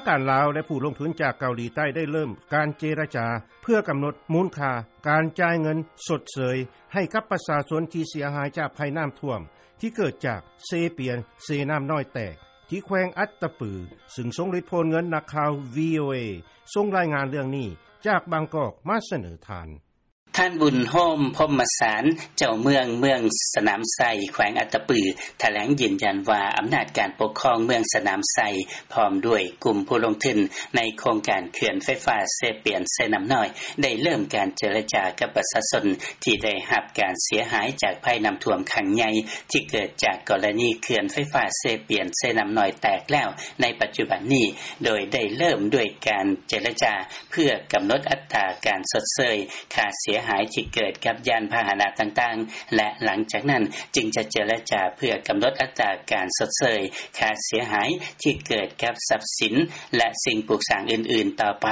ທາງການລາວ ແລະ ຜູ້ລົງທຶນຈາກເກົາຫຼີໃຕ້ ໄດ້ເລີ່ມການເຈລະຈາ ເພື່ອກຳນົດມູນຄ່າການຈ່າຍເງິນຊົດເຊີຍ ໃຫ້ກັບປະຊາຊົນທີ່ເສຍຫາຍຈາກໄພນ້ຳຖ້ວມ ທີ່ເກີດຈາກເຊປຽນເຊນ້ຳນ້ອຍແຕກ ທີ່ແຂວງອັດຕະປື ຊຶ່ງຊົງລິດໂພນເງິນ. ນັກຂ່າວ ວີໂອເອ ສົ່ງລາຍງານເລື່ອງນີ້ຈາກບາງກອກມາສະເໜີທ່ານ. ທ່ານ ບຸນໂຮມ ພົມມະສານ ເຈົ້າເມືອງ ເມືອງສະໜາມໄຊ ແຂວງອັດຕະປື ຖະແຫຼງຢືນຢັນວ່າ ອຳນາດການປົກຄອງເມືອງສະໜາມໄຊ ພ້ອມດ້ວຍກຸ່ມຜູ້ລົງທຶນໃນໂຄງການເຂື່ອນໄຟຟ້າເຊປຽນ-ເຊນ້ຳນ້ອຍ ໄດ້ເລີ່ມການເຈລະຈາກັບປະຊາຊົນ ທີ່ໄດ້ຮັບການເສຍຫາຍຈາກໄພນ້ຳຖ້ວມຄັ້ງໃຫຍ່ ທີ່ເກີດຈາກກໍລະນີເຂື່ອນໄຟຟ້າເຊປຽນ-ເຊນ້ຳນ້ອຍແຕກແລ້ວໃນປັດຈຸບັນນີ້ ໂດຍໄດ້ເລີ່ມດ້ວຍການເຈລະຈາ ເພື່ອກຳນົດອັດຕາການຊົດເຊີຍຄ່າເສຍຫາຍທີ່ເກີດກັບຍານພາຫະນະຕ່າງໆ ແລະ ຫຼັງຈາກນັ້ນຈຶ່ງຈະເຈລະຈາເພື່ອກຳນົດອັດຕາການຊົດເຊີຍຄ່າເສຍຫາຍທີ່ເກີດກັບຊັບສິນ ແລະ ສິ່ງປຸກສ້າງອື່ນໆຕໍ່ໄປ,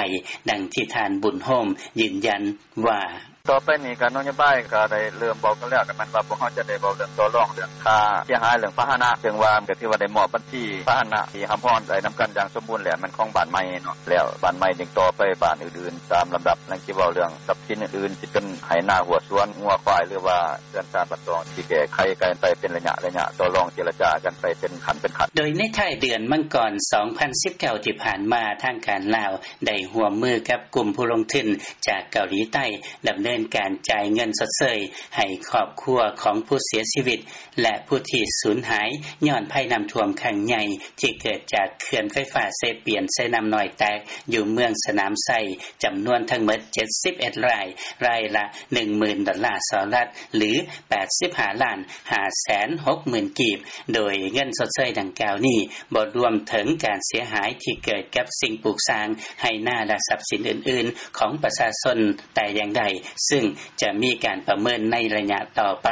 ດັ່ງທີ່ທ່ານ ບຸນໂຮມ ຢືນຢັນວ່າ: ຕໍ່ໄປນີ້ກະນະໂຍບາຍກະໄດ້ເລີ່ມເວົ້າກັນແລ້ວ ກະແມ່ນວ່າພວກເຮົາຈະໄດ້ເວົ້າເລື່ອງຕໍ່ລອງເລື່ອງຄ່າເສຍຫາຍເລື່ອງພາຫະນະ ເຊິ່ງວ່າກະຖືວ່າໄດ້ມອບບັນຊີພາຫະນະທີ່ຮັບຮອງໄດ້ນຳກັນຢ່າງສົມບູນແລ້ວ ແມ່ນຂອງບ້ານໃໝ່ເນາະ ແລ້ວບ້ານໃໝ່ຈຶ່ງຕໍ່ໄປບ້ານອື່ນໆຕາມລຳດັບ ຍັງຊິເວົ້າເລື່ອງຊັບສິນອື່ນໆ ຊິເປັນໄຮ່ນາຮົ້ວສວນງົວຄວາຍ ຫຼືວ່າເຮືອນຊານບ້ານຊ່ອງ ຊິແກ້ໄຂກັນໄປເປັນໄລຍະໆ ຕໍ່ລອງເຈລະຈາກັນໄປເປັນຂັ້ນເປັນຂັ້ນ. ໂດຍໃນທ້າຍເດືອນມັງກອນ ສອງພັນສິບເກົ້າ ທີ່ຜ່ານມາ ທາງການລາວໄດ້ຮ່ວມມືກັບກຸ່ມຜູ້ລົງທຶນຈາກເກົາຫຼີໃຕ້ ດຳເນີນການຈ່າຍເງິນຊົດເຊີຍໃຫ້ຄອບຄົວຂອງຜູ້ເສຍຊີວິດ ແລະ ຜູ້ທີ່ສູນຫາຍຍ້ອນໄພນ້ຳຖ້ວມຄັ້ງໃຫຍ່ ທີ່ເກີດຈາກເຂື່ອນໄຟຟ້າເຊປຽນ-ເຊນ້ຳນ້ອຍແຕກ ຢູ່ເມືອງສະໜາມໄຊ ຈຳນວນທັງໝົດ ເຈັດສິບເອັດ ລາຍ, ລາຍລະ ໜຶ່ງໝື່ນ ດອນລາສະຫະລັດ ຫຼື ແປດສິບຫ້າລ້ານຫ້າແສນຫົກໝື່ນກີບ, ໂດຍເງິນຊົດເຊີຍດັ່ງກ່າວນີ້ ບໍ່ລວມເຖິງການເສຍຫາຍທີ່ເກີດກັບສິ່ງປູກສ້າງ, ໄຮ່ນາ ແລະ ຊັບສິນອື່ນໆຂອງປະຊາຊົນແຕ່ຢ່າງໃດ, ຊຶ່ງຈະມີການປະເມີນໃນໄລຍະຕໍ່ໄປ.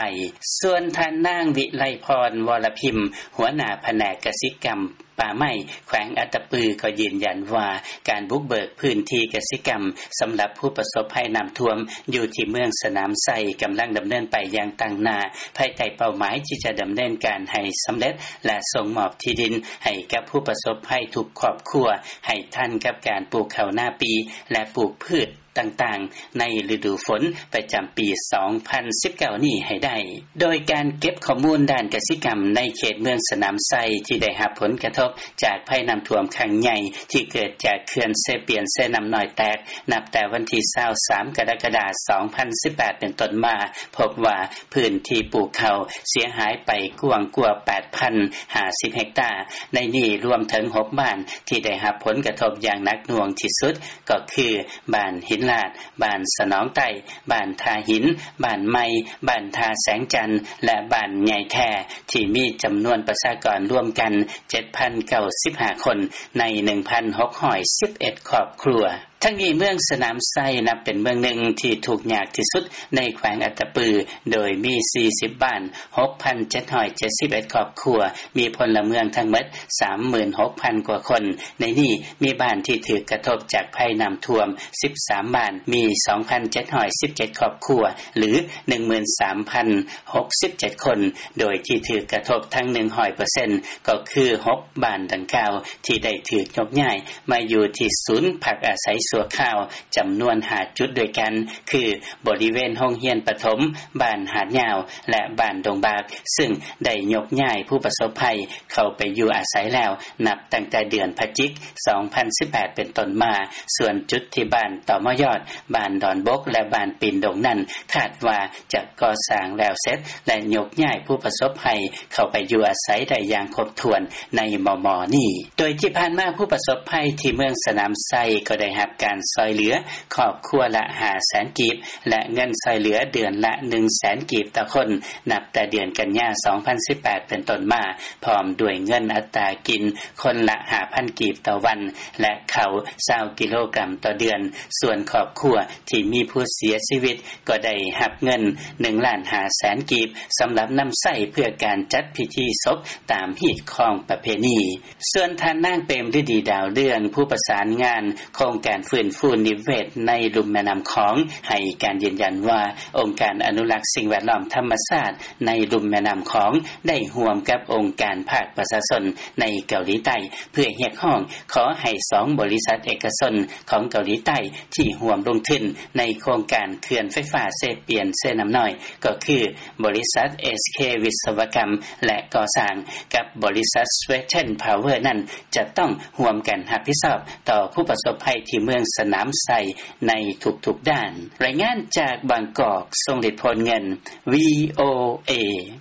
ສ່ວນທ່ານນາງ ວິໄລພອນ ວໍລະພິມ ຫົວໜ້າພະແນກກະສິກຳ ປ່າໄມ້ ແຂວງອັດຕະປື ກໍຢືນຢັນວ່າ ການບຸກເບີກພື້ນທີ່ກະສິກຳສຳລັບຜູ້ປະສົບໄພນ້ຳຖ້ວມຢູ່ທີ່ເມືອງສະໜາມໄຊ ກຳລັງດຳເນີນໄປຢ່າງຕັ້ງໜ້າ ພາຍໃຕ້ເປົ້າໝາຍທີ່ຈະດຳເນີນການໃຫ້ສຳເລັດ ແລະ ສົ່ງມອບທີ່ດິນໃຫ້ກັບຜູ້ປະສົບໄພທຸກຄອບຄົວ ໃຫ້ທັນກັບການປູກເຂົ້ານາປີ ແລະ ປູກພືດຕ່າງໆໃນລະດູຝົນປະຈຳປີສອງພັນສິບເກົ້ານີ້ໃຫ້ໄດ້. ໂດຍການເກັບຂໍ້ມູນດ້ານກະສິກຳໃນເຂດເມືອງສະໜາມໄຊ ທີ່ໄດ້ຮັບຜົນກະທົບຈາກໄພນ້ຳຖ້ວມຄັ້ງໃຫຍ່ ທີ່ເກີດຈາກເຂື່ອນເຊປຽນ-ເຊນ້ຳນ້ອຍແຕກ ນັບແຕ່ວັນທີຊາວສາມ ກໍລະກະດາ ສອງພັນສິບແປດ ເປັນຕົ້ນມາ ພົບວ່າພື້ນທີ່ປູກເຂົ້າເສຍຫາຍໄປກວ້າງກວ່າ ແປດພັນຫ້າສິບ ເຮັກຕາ, ໃນນີ້ລວມເຖິງ ຫົກ ບ້ານທີ່ໄດ້ຮັບຜົນກະທົບຢ່າງໜັກໜ່ວງທີ່ສຸດ ກໍຄື ບ້ານຫີນລາດ, ບ້ານສະໜອງໃຕ້, ບ້ານທ່າຫີນ, ບ້ານໃໝ່, ບ້ານທ່າແສງຈັນ ແລະ ບ້ານໃຫຍ່ແທ້ ທີ່ມີຈຳນວນປະຊາກອນລວມກັນ ເຈັດພັນເກົ້າສິບຫ້າຄົນ ໃນ ໜຶ່ງພັນຫົກຮ້ອຍສິບເອັດ ຄອບຄົວ. ທັງນີ້ເມືອງສະໜາມໄຊ ນັບເປັນເມືອງໜຶ່ງທີ່ທຸກຍາກທີ່ສຸດໃນແຂວງອັດຕະປື ໂດຍມີ ສີ່ສິບ ບ້ານ, ຫົກພັນເຈັດຮ້ອຍເຈັດສິບເອັດ ຄອບຄົວ, ມີພົນລະເມືອງທັງໝົດ ສາມໝື່ນຫົກພັນ ກວ່າຄົນ, ໃນນີ້ມີບ້ານທີ່ຖືກກະທົບຈາກໄພນ້ຳຖ້ວມ ສິບສາມ ບ້ານ, ມີ ສອງພັນເຈັດຮ້ອຍສິບເຈັດ ຄອບຄົວ ຫຼື ໜຶ່ງໝື່ນສາມພັນຫົກສິບເຈັດ ຄົນ, ໂດຍທີ່ຖືກກະທົບທັງ ໜຶ່ງຮ້ອຍເປີເຊັນ ກໍຄື ຫົກ ບ້ານດັ່ງກ່າວ ທີ່ໄດ້ຖືກຍົກຍ້າຍມາຢູ່ທີ່ສູນພັກອາໄສຊົ່ວຄາວ ຈຳນວນ ຫ້າ ຈຸດດ້ວຍກັນ ຄື ບໍລິເວນໂຮງຮຽນປະຖົມ, ບ້ານຫາດຍາວ ແລະ ບ້ານດົງບາກ, ຊຶ່ງໄດ້ຍົກຍ້າຍຜູ້ປະສົບໄພເຂົ້າໄປຢູ່ອາໄສແລ້ວ ນັບຕັ້ງແຕ່ເດືອນພະຈິກ ສອງພັນສິບແປດ ເປັນຕົ້ນມາ. ສ່ວນຈຸດທີ່ບ້ານຕໍມໍຍອດ, ບ້ານດອນບົກ ແລະ ບ້ານປີນດົງນັ້ນ ຄາດວ່າຈະກໍ່ສ້າງແລ້ວເສັດ ແລະ ຍົກຍ້າຍຜູ້ປະສົບໄພເຂົ້າໄປຢູ່ອາໄສໄດ້ຢ່າງຄົບຖ້ວນໃນມໍ່ໆນີ້. ໂດຍທີ່ຜ່ານມາຜູ້ປະສົບໄພທີ່ເມືອງສະໜາມໄຊ ກໍໄດ້ຮັບການຊ່ອຍເຫຼືອຄອບຄົວລະ ຫ້າແສນ ກີບ ແລະ ເງິນຊ່ອຍເຫຼືອເດືອນລະ ໜຶ່ງແສນ ກີບຕໍ່ຄົນ ນັບແຕ່ເດືອນກັນຍາ ສອງພັນສິບແປດ ເປັນຕົ້ນມາ, ພ້ອມດ້ວຍເງິນອັດຕາກິນຄົນລະ ຫ້າພັນ ກີບຕໍ່ວັນ ແລະ ເຂົ້າ ຊາວ ກິໂລກຣາມຕໍ່ເດືອນ. ສ່ວນຄອບຄົວທີ່ມີຜູ້ເສຍຊີວິດ ກໍໄດ້ຮັບເງິນ ໜຶ່ງລ້ານຫ້າແສນ ກີບ ສຳລັບນຳໃຊ້ເພື່ອການຈັດພິທີສົບຕາມຮີດຄອງປະເພນີ. ສ່ວນທ່ານນາງ ເປມລະດີ ດາວເລື່ອງ ຜູ້ປະສານງານໂຄງການ ຟື້ນຟູນິເວດໃນລຸ່ມແມ່ນໍ້າຂອງ ໃຫ້ການຢືນຢັນວ່າ ອົງການອະນຸລັກສິ່ງແວດລ້ອມທຳມະຊາດ ໃນລຸ່ມແມ່ນໍ້າຂອງ ໄດ້ຮ່ວມກັບອົງການພາກປະຊາຊົນ ໃນເກົາຫຼີໃຕ້ ເພື່ອຮຽກຮ້ອງຂໍໃຫ້ສອງບໍລິສັດເອກະຊົນ ຂອງເກົາຫຼີໃຕ້ ທີ່ຮ່ວມລົງທຶນ ໃນໂຄງການເຂື່ອນໄຟຟ້າເຊປຽນ-ເຊນໍ້ານ້ອຍ ກໍຄື ບໍລິສັດ ເອສເຄ ວິສະວະກຳ ແລະກໍ່ສ້າງ ກັບບໍລິສັດ Sweden Power ນັ້ນ ຈະຕ້ອງຮ່ວມກັນຮັບຜິດຊອບ ຕໍ່ຜູ້ປະສົບໄພ ທີ່ເມືອງສະໜາມໄຊ ໃນທຸກໆດ້ານ. ລາຍງານຈາກບາງກອກ ຊົງລິດ ໂພນເງິນ ວີໂອເອ.